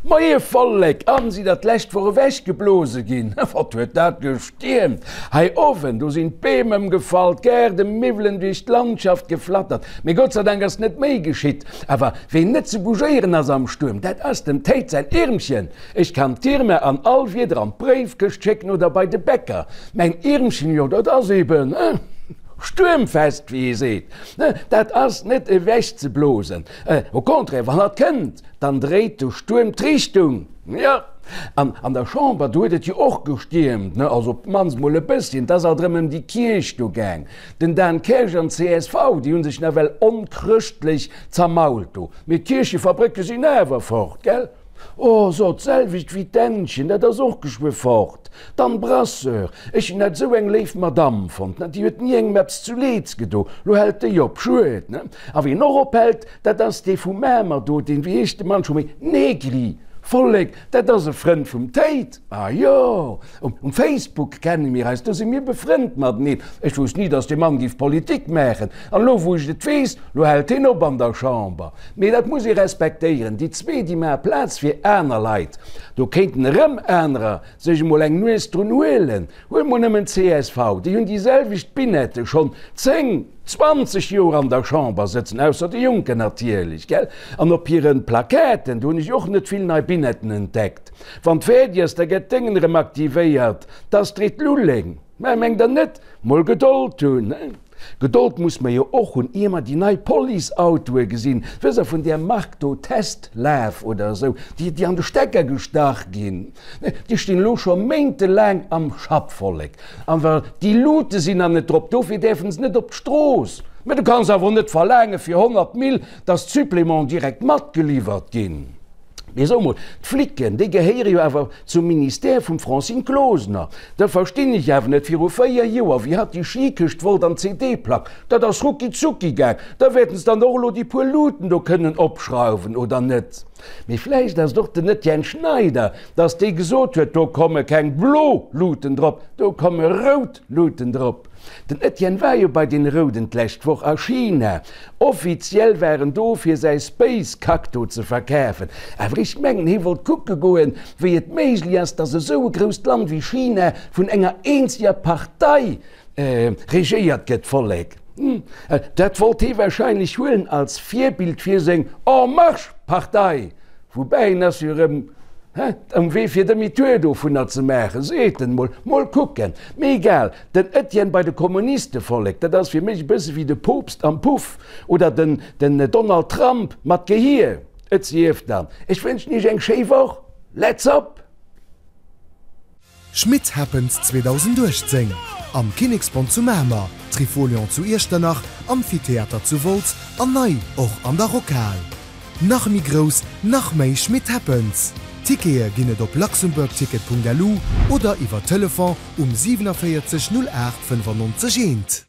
Moie Vollek, an si der d'lescht Woch ewech geblose ginn? Wat huet dat gestiermt hei owen, do sinn d'Beem ëmgefall, d'Gaardemiwwelen duerch d'Landschaft geflattert. Mee Gott sei Dank ass net méi geschitt. Awer ween net ze bougéieren ass am Stuerm, dat ass dem Théid säin Iermchen. Ech kann d'Irma an all Wieder an d'Bréifkëscht schécken oder bei de Bäcker. Mäin Iermchen, jo dat ass eben stuermfest, wéi ee seet. Dat ass net ewech ze blosen. Au contraire, wann hatt kënnt, Dann dréit de Stuerm d'Richtung. Jo, an an der Chamber, do huet et jo och gestiermt, ne, also op d'mannst mol e bësschen. Et ass alt erëm ëm déi Kierch do gaang. Den Dan Kersch an d'CSV, déi hu sech nawell onchrëschtlech zermault do. Mee d'Kierchefabrécke sinn awer fort, gell? Oh, so, d'selwecht wéi d'Ännchen, dat ass och geschwë fort. D'Anne Brasseur, ech hunn dat esou eng léif Madamm fonnt, ne, déi huet ni engem eppes zu Leeds gedo. Lo hält déi op, schued, ne? A wien och ophält, Dat ass dee vu Mamer do, deen, wéi heescht de Mann scho méi? Negri! Vollek, dat ass e Frënd vum Théid! Ah jo, um Facebook kenne mir eis, do si mir befrënnt mateneen. Ech wousst ni, datt dee Mann géif Politik maachen. An elo, wou ech et weess, lo hält hien op an der Chamber. Mee dat muss ee respektéieren, déi zwee, déi maache Plaz fir aner Leit. Do kéinten erëm anerer sech emol eng Nues drun huelen. Huel mol nëmmen csv, déi hunn déi selwecht Binette schonn 10, 20 Joer an der Chamber sëtzen, ausser de Juncker natierlech, gell? An op hiren Plaquetten, do hunn ech och net vill nei Binetten entdeckt. Wann d'fäerdeg ass, da gëtt d'Déngen erëm aktivéiert, d'Astrid Lulling. Mä mengt der net, mol Gedold hunn, he? Gedold muss mer jo och hunn, ier mer déi nei Police-Autoe gesinn, wësst der, vun där Mark do, Testlaf oder esou, déi, déi an de Stecker gestach ginn. Déi stinn elo scho méintelaang am Schapp, Vollek. An well déi Luute sinn nach net drop, dofir däerfen se net op d'Strooss. Mä du kanns awer och net verlaange fir 100 Mille, dass d'Supplémenten direkt matgeliwwert ginn. Mee so mol, d'Flicken, déi gehéiere jo awer zum Ministère vum Francine Closener. Da verstinn ech awer net, viru 4 Joer, wéi hatt déi Skikëscht wollt an d'CD-Plack, dat ass rucki zucki gaang. Da wäerten se dann och elo déi puer Luuten do kënnen opschrauwen, oder net? Mee vläicht ass et och den Etienne Schneider, dass dee gesot huet, do komme keng blo Luuten drop, do komme rout Luuten drop. Den Etienne war jo bei den Rouden d'lescht Woch a China. Offiziell war en do fir säi Space Kack do ze verkafen. Awer ech mengen hie wollt kucke goen, wéi et méiglech ass, dass esou e grousst Land wéi China vun enger eenzeger Partei regéiert gëtt. Vollek, dat wollt hie wahrscheinlech huelen als Virbild fir seng En Marche Partei. Woubäi en ass jo erëm um Wee fir Demi-tour dovunner ze maachen, seet en. Mol mol kucken. Mee egal, den Etienne bei de Kommuniste, Vollek, dat ass fir mech e bësse wéi de Poopst am Puff oder den den Donald Trump mat Gehier. Et sief dann, ech wënschen iech eng schéi Woch. Let's up! Schmitt Happens 2018 am Kinneksbond zu Mamer, Trifolion zu Iechternach, Amphitheater zu Wolz an nei och an der Rockhal. Nach méi grouss, nach méi Schmitt Happens! Tickete ginn et op luxembourgticket.lu oder iwwer Telefon um 47 08 95 1.